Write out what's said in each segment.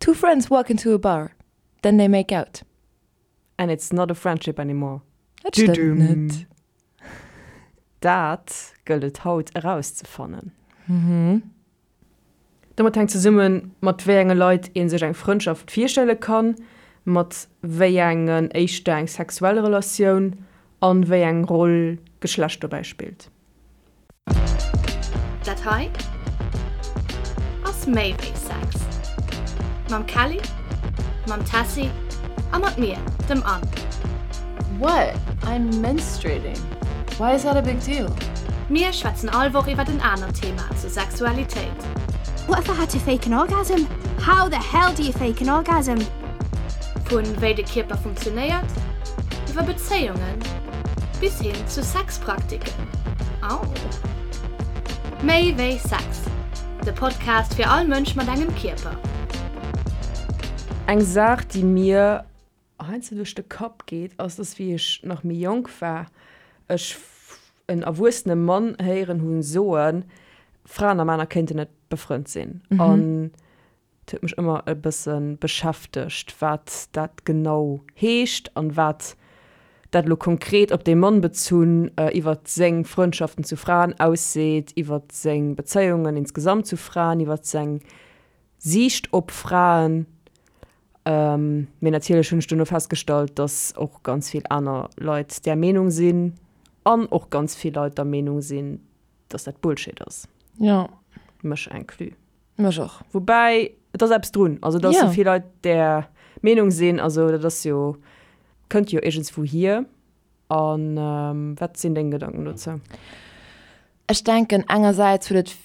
Two friends walk into a bar, then they make out. And it's not a friendship anymore. Dat stëmmt net. Dat gëllt et haut erauszefannen. Domat hänkt zesummen, mat wéi enge Leit ee sech eng Frëndschaft virstelle kann, mat wéi engen éischter eng sexuell Relatioun an wéi eng Roll Geschlecht dobäi spillt. Dat hei ass méi wéi Sex. Mam Kelly, mam Tessy a mat mir, dem Anne. What? I'm menstruating. Why is that a big deal? Mir schwätzen all Woch iwwert en anert Thema zur Sexualitéit. What if I had to fake an orgasm? How the hell do you fake an orgasm? Vun wéi de Kierper funktionéiert, iwwer Bezéiungen bis hin zu Sexpraktiken. Au! Méi wéi Sex, de Podcast fir all Mënsch mat engem Kierper. Eng Saach, déi mir heiansdo duerch de Kapp geet, ass, dass wéi ech nach méi jonk war, ech en erwuessene Mann héieren hunn soen, Fraen a Männer kéinten net befrënnt sinn. An et huet mech ëmmer e bësse beschäftegt, wat dat genau heescht an wat dat elo konkret op dee Mann bezunn iwwer seng Frëndschaften zu Fraen ausseet, iwwer seng Bezéiungen insgesamt zu Fraen, iwwer seng Siicht op Fraen. Mee natierlech hunn ech duerno festgestallt, dass och ganz vill aner Leit där Meenung sinn an och ganz vill Leit der Meenung sinn, dass dat Bullshit ass. Jo. Mech inclus. Mech och. Woubäi, et ass eppes drun. Also, dass esou vill Leit där Meenung sinn, also dat ass jo, kënnt jo iergendswou hier. A wat sinn deng Gedanken dozou? Ech denken, engersäits huet et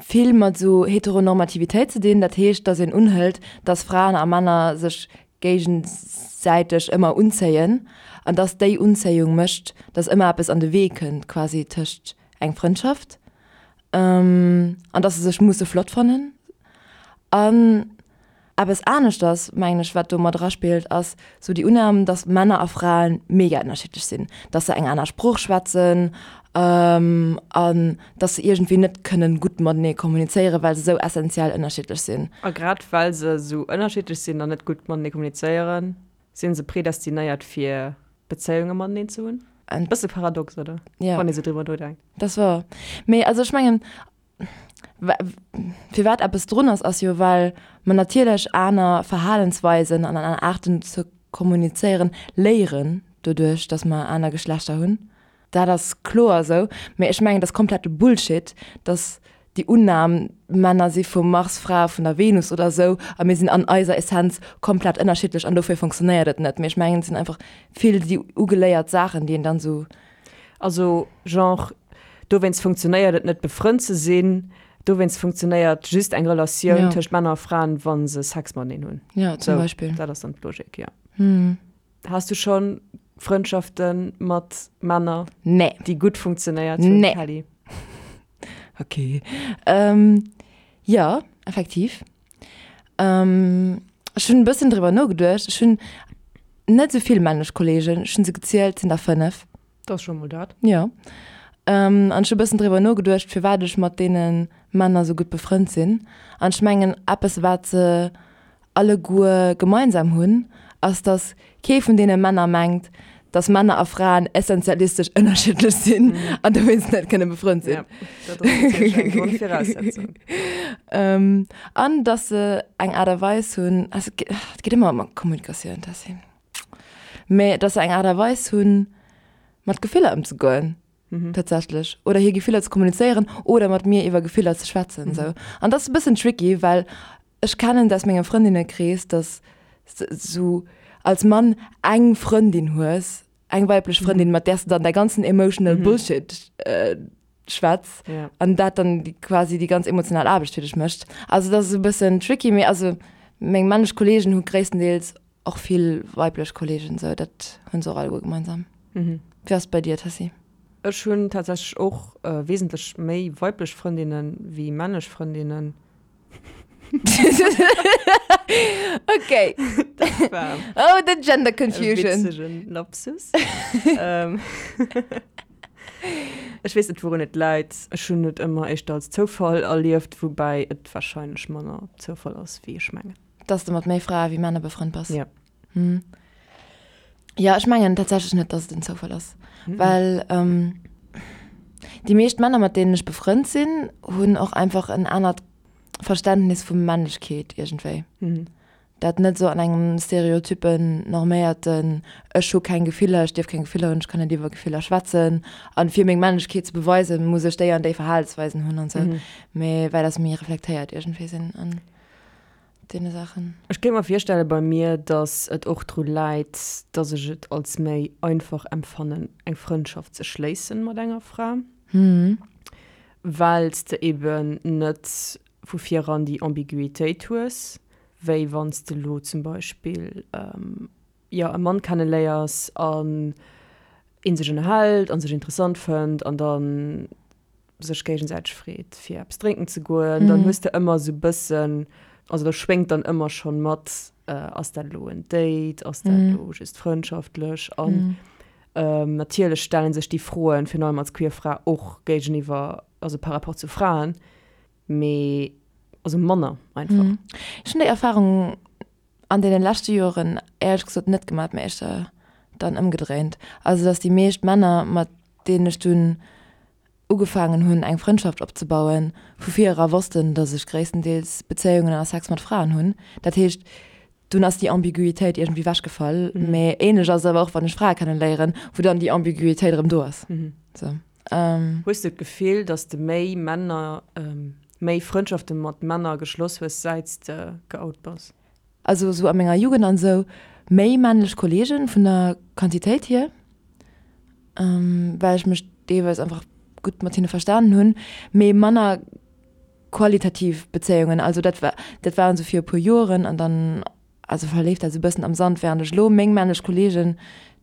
vill mat esou Heteronormativitéit ze dinn. Dat heescht, dass een unhëlt, dass Fraen a Männer sech géigesäiteg ëmmer unzéien an dass déi Unzéiung mécht, dass ëmmer eppes an de Wee kënnt quasi tëscht eng Frëndschaft an dass se sech musse flott fannen. An Eppes aneschters, mengen ech, wat do mat eraspillt, ass sou déi Unnam, dass Männer a Fraen mega ënnerschiddlech sinn, dass se eng aner Sprooch schwätzen an dass se iergendwéi net kënnen gutt matenee kommunizéieren, well se sou essenziell ënnerschiddlech sinn. A grad well se sou ënnerschiddlech sinn an net gutt matenee kommunizéieren, si se predestinéiert fir Bezéiunge mateneen ze hunn. E bësse paradox, oder? Jo. Wann ee sou driwwer nodenkt. Dat ass wouer. Mee also ech mengen, Firwat eppes drun ass, ass jo well mer natierlech aner Verhalensweisen an aner Aarten ze kommunizéieren léieren doduerch, datt mer aner Geschlechter hunn. Dat ass kloer esou. Mee ech mengen, et ass komplette Bullshit, datt déi Unnam, Männer si vum Mars, Frae vun der Venus oder esou a mir sinn an eiser Essenz komplett ënnerschiddlech an dofir funktionéiert et net. Mee ech mengen, et sinn einfach vill déi ugeléiert Saachen, déi een dann esou. Also genre, dowéinst funktionéiert et net befrënnt ze sinn, dowéinst funktionéiert just eng Relatioun tëscht Männer a Fraen, wa se Sex mateneen hunn. Ja, zum Beispill. Dat ass dann d'Logik, jo. Has du scho Frëndschafte mat Männer, Nee. déi gutt funktionéiert hunn, Nee. Kelly? Okay. Jo, effektiv. Ech hunn e bëssen driwwer nogeduecht. Ech hunn net esou vill männlech Kolleegen. Ech hunn se gezielt, et sinn der 5. Dat ass scho mol dat. Jo. An ech hu e bëssen driwwer nogeduecht, firwat ech mat deene Männer esou gutt befrënnt sinn. An ech mengen, eppes wat se alleguer gemeinsam hunn, ass dass kee vun deene Männer mengt, dass Männer a Fraen essentialistesch ënnerschiddlech sinn an dowéinst net kënne befrënnt sinn. Ja, dat ass natierlech eng Grondviraussetzung. An dass se eng Aart a Weis hunn, also et geet ëmmer ëm Kommunikatioun, Tessy, mä dass se eng Aart a Weis hunn, mat Gefiller ëmzegoen tatsächlech, oder hir Gefiller ze kommunizéieren oder mat mir iwwer Gefiller ze schwätzen esou. An dat ass e bëssen tricky, well Ech kennen et aus mengem Frëndinnekrees, dass s de sou als Mann eng Frëndin hues, eng weiblech Frëndin, mat där s de dann däi ganzen emotional Bullshit schwätz an dat dann quasi déi ganz emotional Aarbecht fir dech mécht. Also dat ass e bëssen tricky, mee also meng männlech Kolleegen hu gréisstendeels och vill weiblech Kolleegen, sou dat hu se och alleguer gemeinsam. Wéi ass et bei dir, Tessy? Ech hunn tatsächlech och wesentlech méi weiblech Frëndinne wéi männlech Frëndinnen. Okay. Dat war Oh, the gender confusion. E witzegen Lapsus. Ähm, Ech weess net, wourun et läit. Ech hunn et ëmmer éischter als Zoufall erlieft, woubäi et warscheinlech manner Zoufall ass, wéi ech mengen. Dass de mat méi Frae wéi Männer befrënnt bass? Ja. Hm. Ja, ech mengen tatsächlech net, dass et en Zoufall ass. Mhm. Well ähm, déi meescht Männer, mat deenen ech befrënnt sinn, hunn och einfach en anert Verständnis vu Männlechkeet iergendwéi. Mhm. Dat net esou an engem stereotypen, norméierten, ech hu keng Gefiller, ech dierf keng Gefiller hunn, ech kann net iwwer Gefiller schwätzen an fir meng Männlechkeet ze beweisen, muss ech déi an déi Verhalensweisen hunn an esou. Mhm. Mee well dass méi reflektéiert iergendwéi sinn an deene Saachen. Ech kéint mer virstelle bei mir, dass et och dru läit, dass ech et als méi einfach empfannen, eng Frëndschaft ze schléissen mat enger Fra, well s de eben net vu viran déi Ambiguitéit hues, wéi wann s de elo zum Beispill, jo, e Mann kenneléiers an ee sech ënnerhält a sech interessant fënnt an dann sech géigesäiteg freet fir eppes drénken ze goen, dann hues de ëmmer esou e bëssen, also da schwéngt dann ëmmer schonn mat, ass dat elo en Date, ass dat elo just frëndschaftlech? An natierlech stelle sech déi Froen, virun allem als queer Fra, och géigeniwwer, also par rapport zu Fraen, mee also manner einfach. Ech hunn déi Erfarung an deene leschte Joren éierlech gesot net gemat, mee éischter dann ëmgedréint. Also datt déi meescht Männer, mat deenen ech dunn ugefaangen hunn eng Frëndschaft opzebauen, vu vir era wossten, datt ech gréisstendeels Bezéiungen a Sex mat Fraen hunn. Dat heescht, dunn ass déi Ambiguitéit iergendwéi wechgefall. Mee ähnlech ass et awer och, wann ech Frae kenneléieren, wou dann déi Ambiguitéit erëm do ass. Sou. Hues de d'Gefill, datt s de méi Männer, méi Frëndschafte mat Männer geschloss hues, säit s de geout bass? Also sou a menger Jugend an sou, méi männlech Kollegen vun der Quantitéit hier, well ech mech deelweis einfach gutt mat hinne verstanen hunn, mee manner qualitativ Bezéiungen. Also dat war, dat waren sou fir e puer Joeren an dann also verleeft dat sou e bëssen am Sand, während ech elo meng männlech Kollegen,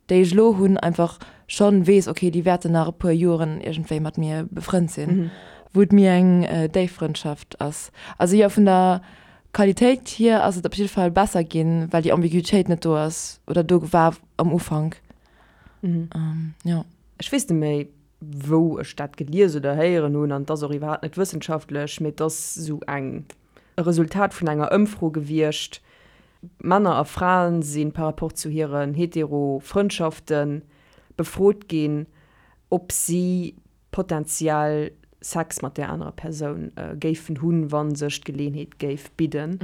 déi ech elo hunn, einfach schonn weess, okay, déi wäerten nach e puer Joeren iergendwéi mat mir befrënnt sinn, wou et méi eng déif Frëndschaft ass. Also jo, vun der Qualitéit hier ass et op jidde Fall besser ginn, well déi Ambiguitéit net do ass oder do war am Ufank. Jo. Ech weess net méi, wou ech dat gelies oder héieren hunn, an et ass och iwwerhaapt net wëssenschaftlech, mee et ass esou eng, e Resultat vun enger Ëmfro gewiescht, Männer a Fraen si par rapport zu hiren hetero Frëndschafte befrot ginn, ob si potentiell Sex mat där anerer Persoun géifen hunn, wa sech d'Geleeënheet géif bidden.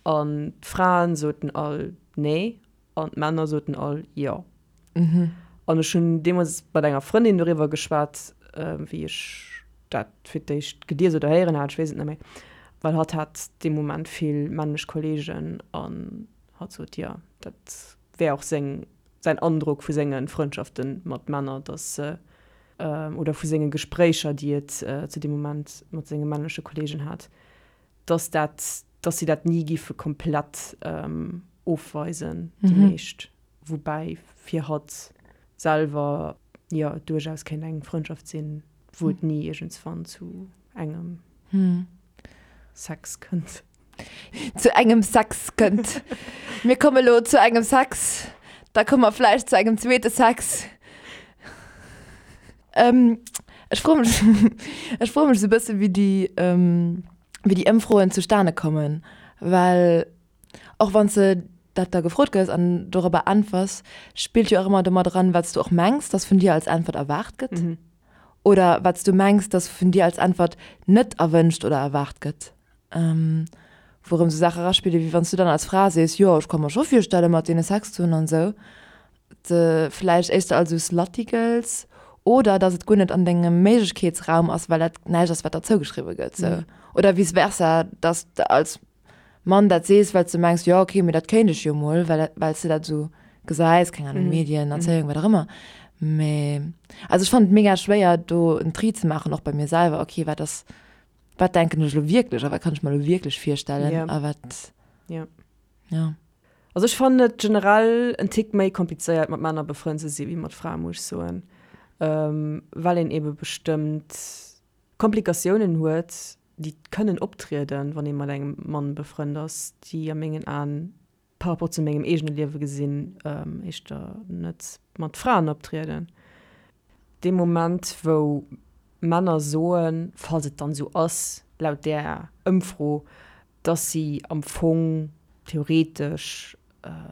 An d'Fraen soten all nee an d'Männer soten all jo. An ech hunn deemools mat enger Frëndin doriwwer geschwat, wéi ech dat fir d'éischt gelies oder héieren hat, ech weess et net méi, well hatt hat dee Moment vill männlech Kolleegen an hatt sot, jo, dat wär och seng, säin Androck vu senge Frëndschafte mat Männer, datt se, oder vu senge Gespréicher, déi et zu deem Moment mat senge männleche Kolleegen hat, datt dat, datt si dat ni giffe komplett ofweisen, déi meescht. Woubäi fir hatt selwer jo et duerchaus kéint eng Frëndschaft sinn, wou et ni iergendswann zu engem Sex kënnt. Zu engem Sex kënnt. Mir komme lo zu engem Sex, da komme mer vläicht zu engem zweete Sex. Ech froe mech, ech froe mech esou e bësse wéi déi, wéi déi Ëmfroen zustane kommen, well och wann s de dat da gefrot gëss an dorobber äntwers, spillt jo och ëmmer domat eran, wat s du och mengs, dass vun dir als Äntwert erwaart gëtt oder wat s du mengs, dass vun dir als Äntwert net erwënscht oder erwaart gëtt. Wou erëm sou Saache eraspille wéi wann s du dann als Fra sees, jo ech ka mer scho virstelle mat deene Sex ze hunn an esou, de vläicht éischter als esou slutty gëlls oder dass et guer net an dengem Méiglechkeetsraum ass, well dat näischt ass wat der zougeschriwwe gëtt sou. Oder vice versa, dass de als Mann dat sees, well s de mengs, jo okay, mee dat kéint ech jo mol, well well s de dat esou gesäis, keng Ahnung, Medien, Erzéiung, wat och ëmmer. Mee also ech fannen et mega schwéier do en Tri ze maachen, och bei mir selwer, okay wat ass Wat denken ech elo wierklech a wat kann ech mer elo wierklech virstellen Ja. a wat, Ja. ja. Also ech fannen et generell en Tick méi komplizéiert mat Männer befrënnt ze si wéi mat Frae muss ech soen, well een ebe bestëmmt Komplikatiounen huet, déi kënnen optrieden, wann ee mat engem Mann befrënnt ass, déi a mengen Aen par rapport zu mengem eegene Liewe gesinn, éischter net mat Fraen optrieden. Dee Moment, wou Männer soen, falls et dann esou ass, laut där Ëmfro, dass si am Fong. theoretesch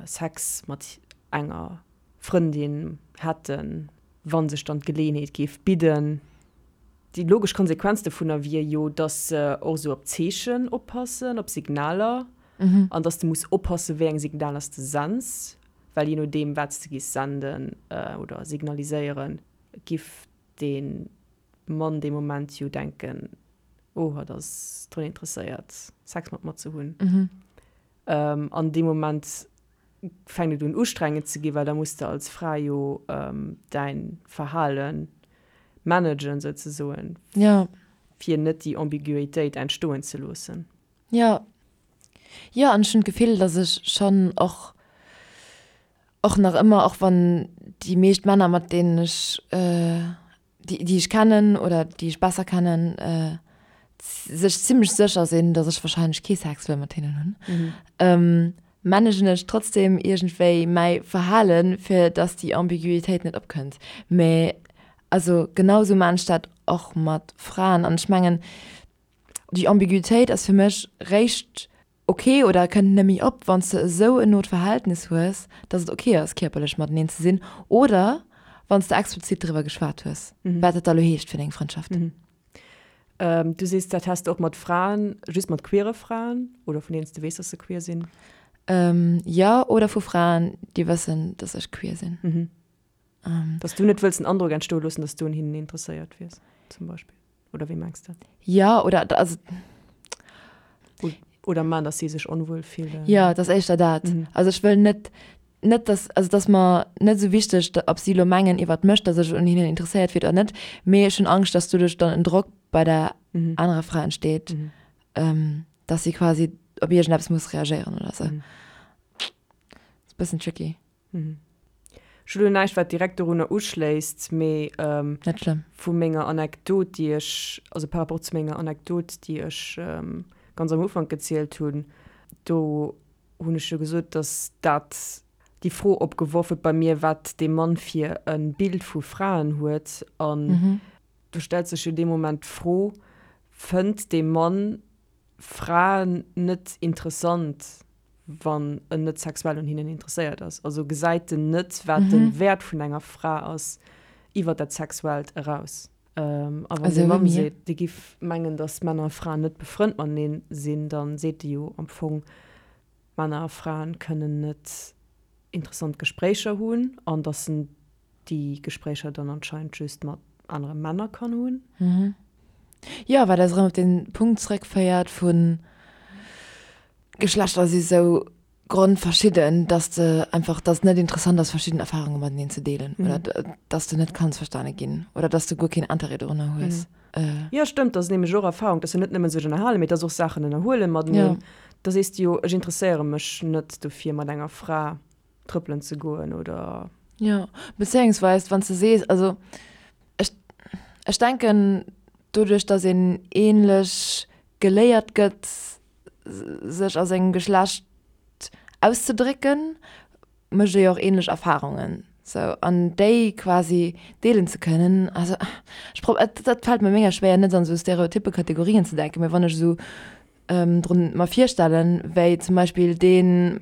Sex mat enger Frëndin hätten, wa sech dann d'Geleeënheet géif bidden. Déi logesch Konsequenz dovunner wier jo, dass se och esou op Zeechen oppassen, op Signaler, an dass de muss oppassen, wéi eng Signaler s de sends, well jee nodeem, wat s de giss senden oder signaliséieren, giff dee Mann dee Moment jo denken, oh, hatt ass drun interesséiert, Sex mat mer ze hunn. An dee Moment fänkt et un ustrengend ze ginn, well da muss de als Fra jo däin Verhale managen souzesoen, fir net déi Ambiguitéit entstoen ze loossen. Jo, jo, an ech hunn d'Gefill, datt ech schonn och, och nach ëmmer, och wann déi meescht Männer, mat deenen ech déi, déi ech kennen oder déi ech besser kennen, sech zimmlech sécher sinn, datt ech wahrscheinlech kee Sex wëll mat hinnen hunn, managen ech trotzdem iergendwéi mäi Verhalen, fir datt déi Ambiguitéit net opkënnt. Mä also genau sou maan ech dat och mat Fraen an ech mengen, déi Ambiguitéit ass fir mech réischt ok oder kënnt net méi op, wann s de esou en not Verhältnis hues, dass et ok ass, kierperlech mateneen ze sinn, oder wann s de explizit driwwer geschwat hues, wat dat da lo heescht fir deng Frëndschaft. Du sees, dat häss de och mat Fraen, just mat queere Fraen oder vun deenen s de weess, dass se queer sinn? Jo, oder vu Fraen, déi wëssen, dass ech queer sinn. Dass du net wëlls den Androck entstoe loossen, dass du un hinnen interesséiert wiers, zum Beispill. Oder wéi mengs de? Jo, oder also. Oder man, dass si sech onwuel fillen. Jo, et ass éischter dat. Also ech wëll net, net dass, also et ass mer net esou wichteg, ob si elo mengen iwwert mech, dass ech un hinnen interesséiert wier oder net, mee ech hunn Angscht, dass doduerch dann en Drock bei der anerer Fra entsteet, dass si quasi op iergendeppes muss reagéieren oder esou. Ass e bëssen tricky. Ech hu lo näischt, wat direkt dorunner uschléisst, mee Net schlëmm. vu menger Anekdot, déi ech, also par rapport zu menger Anekdot, déi ech ganz am Ufank gezielt hunn, do hunn ech jo gesot, datt dat déi Fro opgeworf huet bei mir, wat dee Mann fir e Bild vu Fraen huet. An do stellt sech jo dee Moment d'Fro, Fënnt dee Mann Fraen net interessant, wann en net sexuell un hinnen interesséiert ass. Also gesäit en net, wat de Wäert vun enger Fra ass iwwer dat Sexuellt eraus. A wann de Mann seet, dee giff mengen, datt Männer a Fraen net befrënnt matenee sinn, da seet e jo am Fong, Männer a Fraen kënnen net interessant Gespréicher hunn an datt en déi Gespréicher dann anscheinend just mat anere Männer kann hunn. Jo, wat eis erëm op den Punkt zréckféiert vun Geschlechter si sou grondverschidden, dass de einfach, dass et net interessant ass verschidden Erfahrunge mateneen ze deelen oder dass de net kanns verstane ginn oder dass de guer keen Interêt dorunner hues. Jo, stëmmt, dat ass nämlech och Erfahrung, dass se net nëmmen sech ënnerhalen, mee dass och Saachen ënnerhuelen mateneen. Da sees de jo, ech interesséiere mech net dofir mat enger Fra trëppelen ze goen oder. Jo, bezéiungsweis wann s de sees, also ech, ech denken doduerch, datt een ähnlech geléiert gëtt sech a sengem Geschlecht auszedrécken, mécht ee jo och ähnlech Erfahrungen sou an déi quasi deelen ze kënnen. Also ech prob, et dat fält mir mega schwéier net an esou stereotyppe Kategorien ze denken, mee wann ech esou drun mer virstellen, wéi zum Beispill deen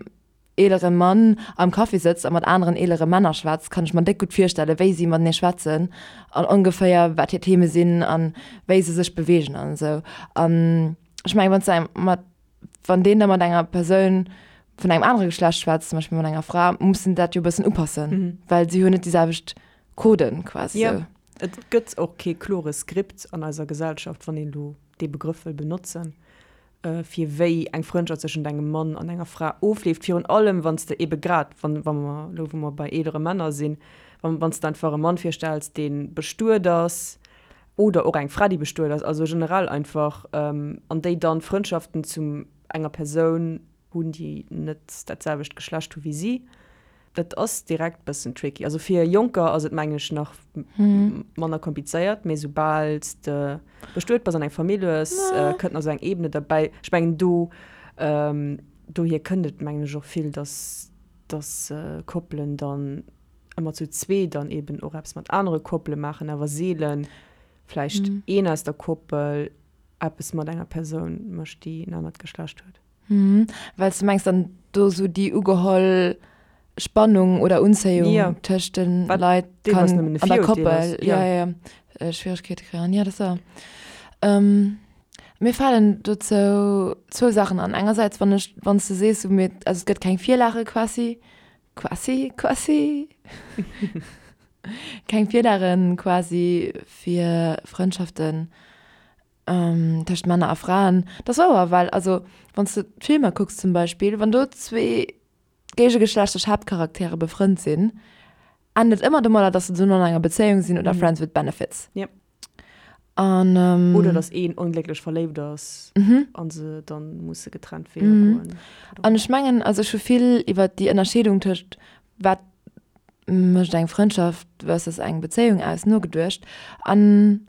eelere Mann am Café sëtzt a mat aneren eelere Männer schwätzt, kann ech mer déck gutt virstellen, wéi si matenee schwätzen an ongeféier wat hir Theme sinn an wéi se sech beweegen an esou. An ech mengen, wann s de mat, wann deen da mat enger Persoun vun engem anere Geschlecht schwätzt, zum Beispill mat enger Fra, muss en dat jo e bëssen upassen, well si hunn net déi selwecht Coden quasi esou. Jo, et gëtt och kee klore Skript an eiser Gesellschaft, wann een elo dee Begrëff wëll benotzen. fir wéi eng Frëndschaft zwëschent engem Mann an enger Fra ofleeft, virun allem wann s de ebe grad, wann, wa mer elo, wou mer bei eelere Männer sinn, wann, wann s de einfach e Mann virstells, dee bestuet ass, oder och eng Fra, déi bestuet ass, also generell einfach, an déi dann Frëndschaften zu enger Persoun hunn, déi net dat selwecht Geschlecht hu wéi si. Dat ass direkt bëssen tricky. Also fir Jonker ass et mengen ech nach manner komplizéiert, mee soubal s de bestuet bass an eng Famill hues, kënnt nach esou eng Ebene derbäi. Ech mengen do, dohier kënnt et mengen ech och vill, dass dass Koppelen dann ëmmer zu zwee dann eben och eppes mat anere Koppele maachen, awer seelen vläicht een aus der Koppel eppes mat enger Persoun mécht, déi en anert Geschlecht huet. Well s de mengs dann do esou déi ugeholl Spannung oder Unzéiung Ja. tëscht de Wat Leit deelweis kann nëmmen e an der Virurteel Koppel ass, ja, ja. ja, ja, Schwieregkeete kréien. Ja, dat ass wahr. Mir falen dozou zwou Saachen an. Engersäits, wann ech, wann s de sees, sou mir, also et gëtt keng Virlage quasi, quasi, quasi, keng Virlage quasi fir Frëndschaften tëscht Männer a Fraen. Dat ass wouer, well also wann s de d'Filmer kucks zum Beispill, wann do zwee géigegeschlechtlech Haaptcharaktere befrënnt sinn, ennt et ëmmer domadder, dass se dono an enger Bezéiung sinn oder Friends with Benefits. Yep. An, ähm, Oder dass een onglécklech verléift ass an se dann musse getrennt Weeër goen. An ech mengen, also ech hu vill iwwer déi Ënnerscheedung tëscht wat mécht eng Frëndschaft versus eng Bezéiung aus nogeduecht. An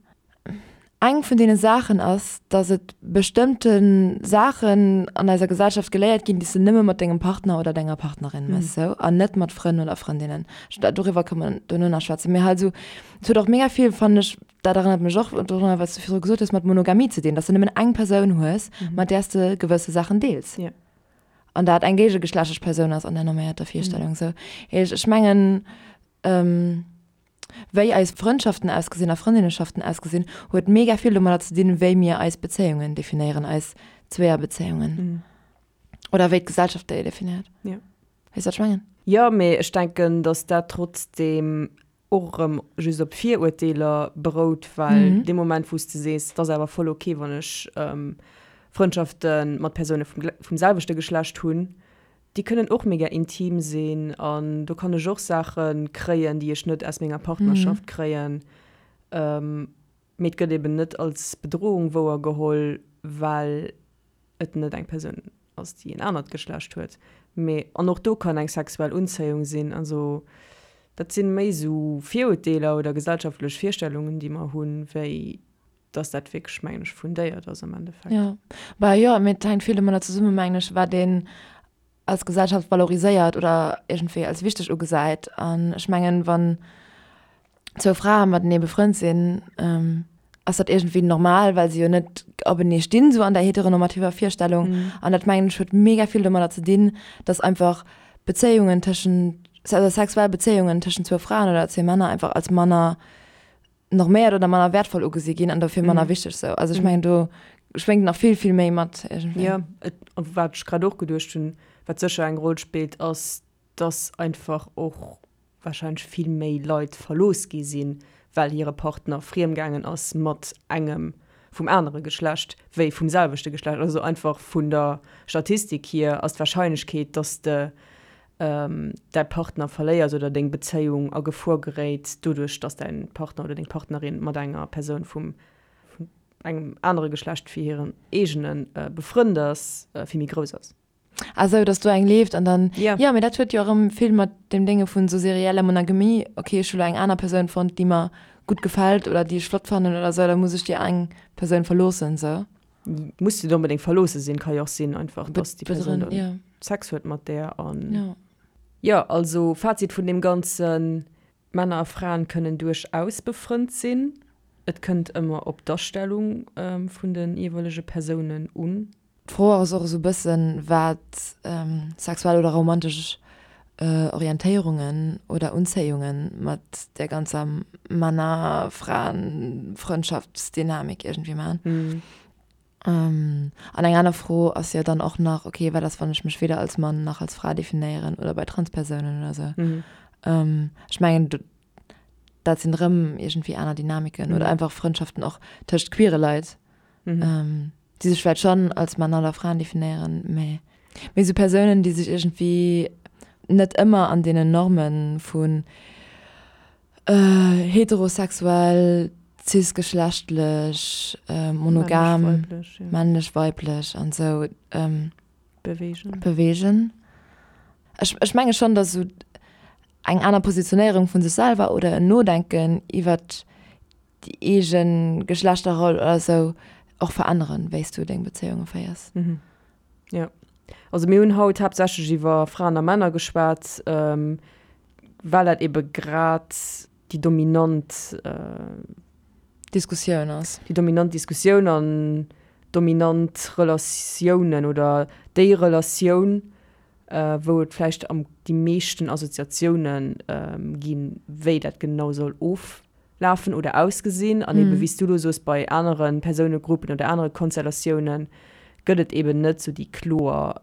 Eng vun deene Saachen ass, dass et bestëmmte Saachen an eiser Gesellschaft geléiert ginn, déi s de nëmme mat dengem Partner oder denger Partnerin méchs, sou, an net mat Frënn oder Frëndinnen. Doriwwer kënne mer dono nach schwätzen. Mee halt esou, et huet och mega vill, fannen ech, dat erënnert mech och dorunner, wat s du virdru gesot hues, mat Monogamie ze dinn, dass de nëmmen eng Persoun hues, mat där s de gewësse Saachen deels. An dat eng géigegeschlechtlech Persoun ass an der norméierter Virstellung, sou. Ech mengen, Wéi eis Frëndschaften ausgesinn a Frëndinneschaften ausgesinn, huet mega vill domadder ze dinn, wéi mir eis Bezéiungen definéieren, eis Zweeërbezéiungen. Oder wéi d'Gesellschaft déi definéiert. Ja. Weess wat ech mengen? Jo, mee ech denken, datt dat trotzdeem och erëm just op Virurteeler berout, well dee Moment, wou s de sees, et ass awer voll ok, wann ech Frëndschafte mat Persoune vum selwechte Geschlecht hunn, Déi kënnen och mega intim sinn an do kann ech och Saache kréien, déi ech net aus menger Partnerschaft kréien. Mee et gëtt eben net als Bedrohung wouer geholl, well et net eng Persoun ass, déi en anert Geschlecht huet. Mee an och do kann eng sexuell Unzéiung sinn. Also dat sinn méi esou Virurteeler oder gesellschaftlech Virstellungen, déi mer hunn, wéi dass dat wierklech, mengen ech, fundéiert ass am Endeffekt. Jo, bah jo, mee et hänkt vill domadder zesummen, mengen ech, wat een als Gesellschaft valoriséiert oder iergendwéi als wichteg ugesäit. An ech mengen, wann zwou Frae matenee befrënnt sinn, ass dat iergendwéi normal, well se jo net openee stinn, sou an der heteronormativer Virstellung. An dat, mengen ech, huet mega vill domadder ze dinn, dass einfach Bezéiungen tëschent, also sexuell Bezéiungen tëschent zwou Fraen oder zwee Männer einfach als manner norméiert oder manner wertvoll ugesi ginn an dofir manner wichteg sou. Also ech mengen do schwéngt nach vill vill méi mat iergendwéi. Jo, et, an wat ech grad och geduecht hunn, wat sécher eng Roll spillt, ass, dass einfach och warscheinlech vill méi Leit verlooss gi sinn, well hire Partner friemgaangen ass mat engem vum anere Geschlecht wéi vum selwechte Geschlecht. Also einfach vun der Statistik hier ass d'Warscheinlechkeet, dass de däi Partner verléiers oder deng Bezéiung a Gefor geréit, doduerch dass däin Partner oder deng Partnerin mat enger Persoun vum engem anere Geschlecht wéi hirem eegene befrënnt ass, vill méi grouss ass. Ah sou, dass do eng leeft an dann, Ja. jo, mee dat huet jo erëm vill mat deem Dénge vun sou serieller Monogamie, okay, ech hu lo eng aner Persoun fonnt, déi mer gutt gefält oder déi ech flott fannen oder sou, da muss ech déi eng Persoun verloossen, sou. Muss net onbedéngt verloosse sinn, ka jo och sinn einfach, dass déi Persoun Bedrënn, dann ja. Sex huet mat där an. Ja. Jo, also Fazit vun deem Ganzen, Männer a Fraen kënnen duerchaus befrënnt sinn, et kënnt ëmmer op d'Astellung vun de jeeweilege Persounen un. D'Fro ass och esou e bëssen, wat sexuell oder romantesch Orientéierungen oder Unzéiunge mat där ganzer Männer-Fraen-Frëndschaftsdynamik iergendwéi maachen. An eng aner Fro ass jo dann och nach, okay, wat ass, wann ech mech weder als Mann nach als Fra definéieren oder bei Transpersounen oder sou. Ech mengen, dat sinn erëm iergendwéi aner Dynamiken oder einfach Frëndschaften och tëscht queere Leit. Déi sech vläicht schonn als Männer oder Fraen definéieren, mä méi esou Persounen, déi sech iergendwéi net ëmmer an deenen Norme vun heterosexuell, cisgeschlechtlech, monogam, männlech, weiblech an esou beweegen. Ech, ech menge schonn, datt esou eng aner Positionéierung vu sech selwer oder en Nodenken iwwert déi eege Geschlechterroll oder sou och veränneren, wéi s du deng Bezéiunge féiers. Mhm. Jo. Also mir hunn haut haaptsächlech iwwer Fraen a Männer geschwat, well dat ebe grad déi dominant Diskussioun ass. Déi dominant Diskussioun an. dominant Relatiounen oder déi Relatioun, wou et vläicht am déi meeschten Assoziatioune ginn, wéi dat genau soll oflafen oder ausgesinn. An ebe wéi s du elo soos, bei anere Persounegruppen oder anere Konstellatioune gëtt et eben net sou déi kloer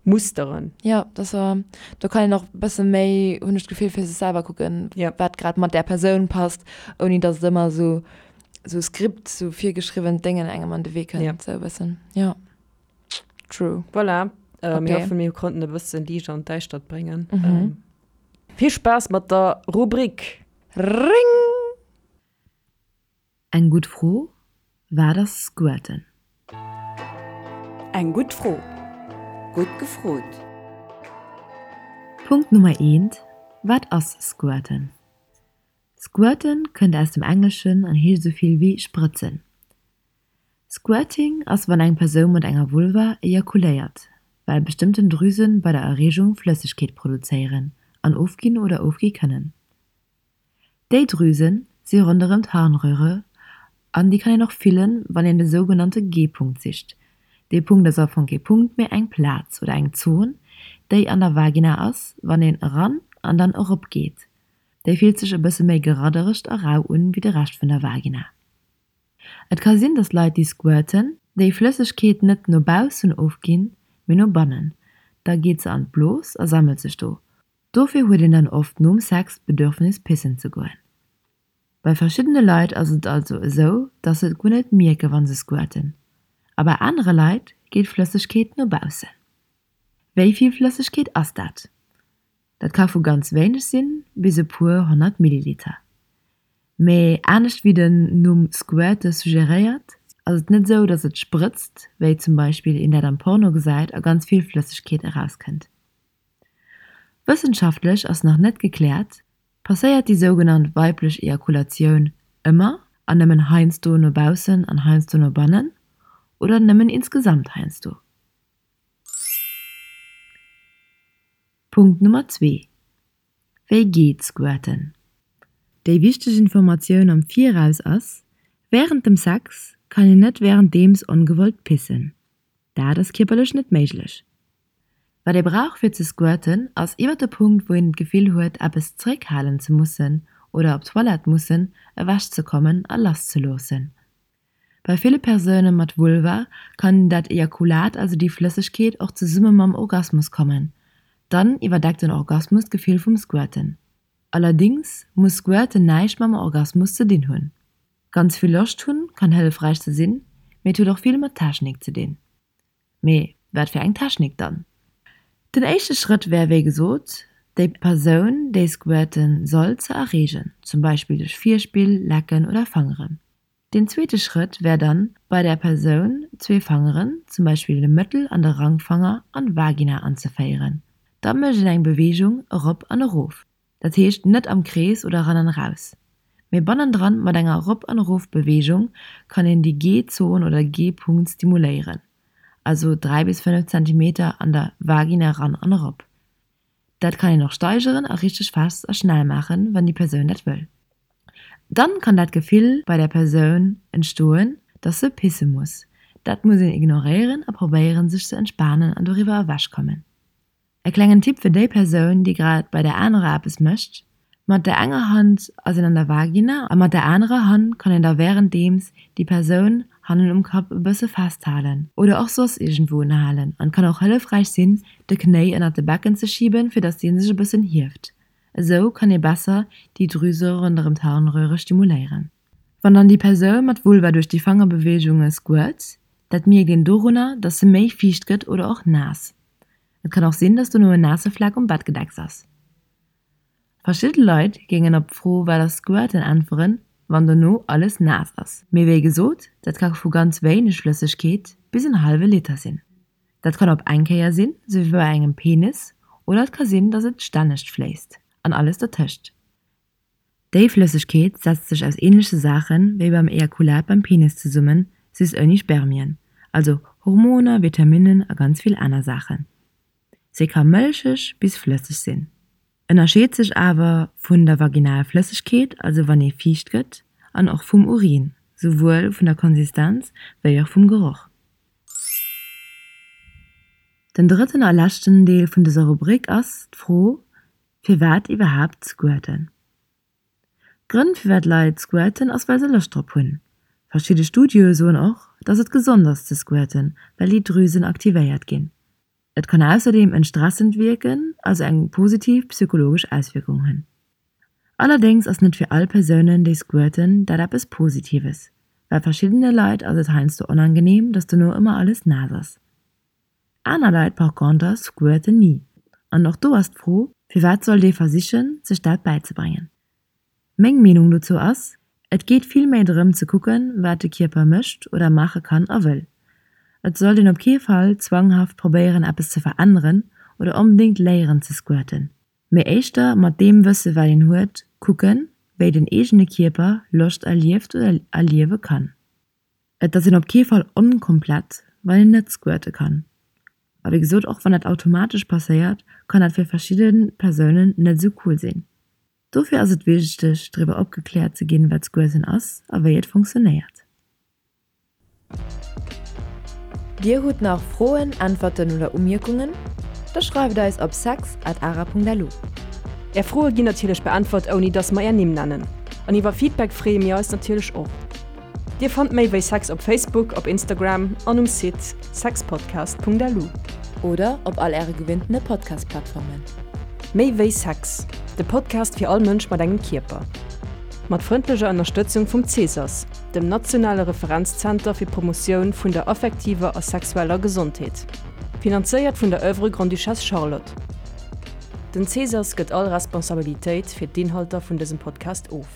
Musteren. Jo, dat ass, do kann een och e bësse méi, hunn ech d'Gefill, fir sech selwer kucken, wat grad mat där Persoun passt, ouni datt et ëmmer esou esou Skript, esou virgeschriwwent Déngen engem an de Wee kënnt, esou e bëssen. Jo, true. Voilà, mir hoffen, mir konnten e bësse Liicht an d'Däischtert bréngen. Vill Spaass mat der Rubrik! Ring! Eng gutt Fro, Wat ass Squirten? Eng gutt Fro, gutt gefrot! Punkt Nummer eent, Wat ass Squirten? Squirten kënnt aus dem Engleschen an heescht esou vill wéi sprëtzen. Squirting ass wann eng Persoun mat enger Vulva ejakuléiert, well bestëmmten Drüsen bei der Erreegung Flëssegkeet produzéieren an ofginn oder ofgi kënnen. Déi Drüsen si ronderëm d'Harnröhre an déi kann een och fillen, wann een de sougenannte G-Punkt sicht. Dee Punkt ass am Fong kee Punkt, mee eng Plaz oder eng Zon, déi an der Vagina ass, wann een eran an dann erop geet. Déi fillt sech e bësse méi geradderegt a rau un wéi de Rescht vun der Vagina. Et ka sinn, dass Leit, déi squirten, déi Flëssegkeet net no baussen ofginn, mee no bannen. Da geet se an d'Blos a sammelt sech do. Dofir huet een dann oft nom Sex d'Bedürfnis pissen ze goen. Bei verschiddene Leit ass et also esou, dass se et guer net mierke wann se squirten, a bei anere Leit geet d'Flëssegkeet no baussen. Wéi vill Flëssegkeet ass dat? Dat ka vu ganz wéineg sinn bis e puer 100 Milliliter. Mee anescht wéi den Numm squirte suggeréiert, ass et net esou, dass et sprëtzt, wéi zum Beispill een dat am Porno gesäit a ganz vill Flëssegkeet erauskënnt. Wëssenschaftlech ass nach net gekläert, Passéiert déi sougenannt weiblech Ejakulatioun ëmmer an nëmmen heiansdo no baussen an heiansdo no bannen oder nëmmen insgesamt heiansdo? Punkt Nummer zwee, Wéi geet Squirten? Déi wichteg Informatioun am Viraus ass, Wärend dem Sex kann een net wärenddeems ongewollt pissen. Dat ass kierperlech net méiglech. Wat ee brauch fir ze squirten ass iwwer de Punkt wou een d'Gefill huet eppes zeréckhalen ze mussen oder op d'Toilette mussen, ewech ze kommen a lass ze loossen. Bei ville Persoune mat Vulva kann dat Ejakulat, also déi Flëssegkeet, och zesumme mam Orgasmus kommen. Dann iwwerdeckt den Orgasmus d'Gefill vum Squirten. Allerdings muss Squirten näischt mam Orgasmus ze dinn hunn. Ganz vill Loscht hunn kann hëllefräich ze sinn, mee et huet och vill mat Technik ze dinn. Mee wat fir eng Technik dann? Den éischte Schrëtt wär wéi gesot, déi Persoun, déi squirten soll, ze erreegen, zum Beispill duerch Virspill, Lecken oder Fangeren. Den zweete Schrëtt wär dann, bei där Persoun zwee Fangeren, zum Beispill de Mëttel an de Rangfanger, an d'Vagina anzeféieren. Da mécht een eng Beweegung erop an erof. Dat heescht net am Krees oder eran an eraus, mee bannendran mat enger Erop an Erof Beweegung kann een déi G-Zon oder G-Punkt stimuléieren, also 3 bis 5 Zentimeter an der Vagina eran an erop. Dat kann een och steigeren a richteg fest a schnell maachen, wann déi Persoun dat wëll. Dann kann dat Gefill bei der Persoun entstoen, dass se pisse muss. Dat muss een ignoréieren a probéieren sech ze entspanen an doriwwer ewech kommen. E klengen Tipp fir déi Persoun, déi grad bei der anerer eppes mécht, Mat der enger Hand ass een an der Vagina a mat der anerer Hand kann een da wärenddeems déi Persoun hannen um Kapp e bësse festhalen oder och soss iergendwou unhalen an kann och hëllefräich sinn, de Knéi ënnert de Becken ze schiben, fir dass dee sech e bëssen hieft. Esou kann ee besser déi Drüse ronderëm d'Harnröhre stimuléieren. Wann dann déi Persoun mat Vulva duerch déi Fangerbeweegunge squirt, dat mierkt een dorunner, dass se méi fiicht gëtt oder och naass. Et kann och sinn, dass dono en naasse Fleck um Bettgedecks ass. Verschidde Leit géingen op d'Fro wat ass Squirten äntweren, wann dono alles naass ass. Mee wéi gesot, dat ka vu ganz wéineg Flëssegkeet bis en hallwe Liter sinn. Dat kann op eng Kéier sinn, sou wéi bei engem Penis, oder et ka sinn, dass et stännegt fléisst an alles dertëscht. Déi Flëssegkeet setzt sech aus ähnleche Saachen wéi beim Ejakulat beim Penis zesummen, just ouni Spermien, also Hormoner, Vitaminnen a ganz vill aner Saachen. Se ka mëlcheg bis flësseg sinn, ënnerscheet sech awer vun der vaginal Flëssegkeet, also wann ee fiicht gëtt, an och vum Urin. Souwuel vun der Konsistenz wéi och vum Geroch. Den drëtten a leschten Deel vun dëser Rubrik ass d'Fro, Firwat iwwerhaapt squirten? D'Grënn firwat Leit squirten ass well se Loscht drop hunn. Verschidde Studioe soen och, dass et gesond ass ze squirten, well déi Drüsen aktivéiert ginn. Et kann ausserdeem entstressend wierken, also eng positiv psychologesch Auswierkung hunn. Allerdéngs ass net fir all Persounen déi squirten dat eppes Positives, well verschiddene Leit ass et heiansdo onangeneem, dass dono ëmmer alles naass ass. Aner Leit par conter squirten ni. An och do ass d'Fro, firwat sollt ee versichen, sech dat bäizebréngen? Meng Meenung dozou ass, et geet vill méi drëm ze kucken, wat de Kierper mécht oder maache kann a wëll. Et sollt een op kee Fall zwanghaft probéieren eppes ze veränneren oder onbedéngt léieren ze squirten, mee éischter mat deem Wësse wat een huet kucken, wéi den eegene Kierper Loscht erlieft oder erliewe kann. Et ass een op kee Fall onkomplett, wann een net squirte kann. A wéi gesot, och wann dat automatesch passéiert, kann dat fir verschidde Persounen net esou cool sinn. Dofir ass et wichteg, driwwer opgekläert ze ginn, wat Squirten ass a wéi et funktionéiert. Dir hutt nach Froen, Äntwerten oder Umierkungen? Da schreift eis op sex at ara.lu. Är Froe ginn natierlech beäntwert, ouni dass mer är Nimm nennen. An iwwer Feedback freeë mir eis natierlech och. Dir fannt méi wéi Sex op Facebook, op Instagram an um Site sexpodcast.lu. Oder op all äre gewinntene Podcast-Plattformen. Méi wéi Sex, de Podcast fir all Mënsch mat engem Kierper. Mat frëndlecher Ënnerstëtzung vum Cesas, dem nationale Referenzzenter fir d'Promotioun vun der affektiver a sexueller Gesondheet. Finanzéiert vun der Oeuvre Grande-Duchesse Charlotte. Den Cesas gëtt all Responsabilitéit fir d'Inhalter vun dësem Podcast of.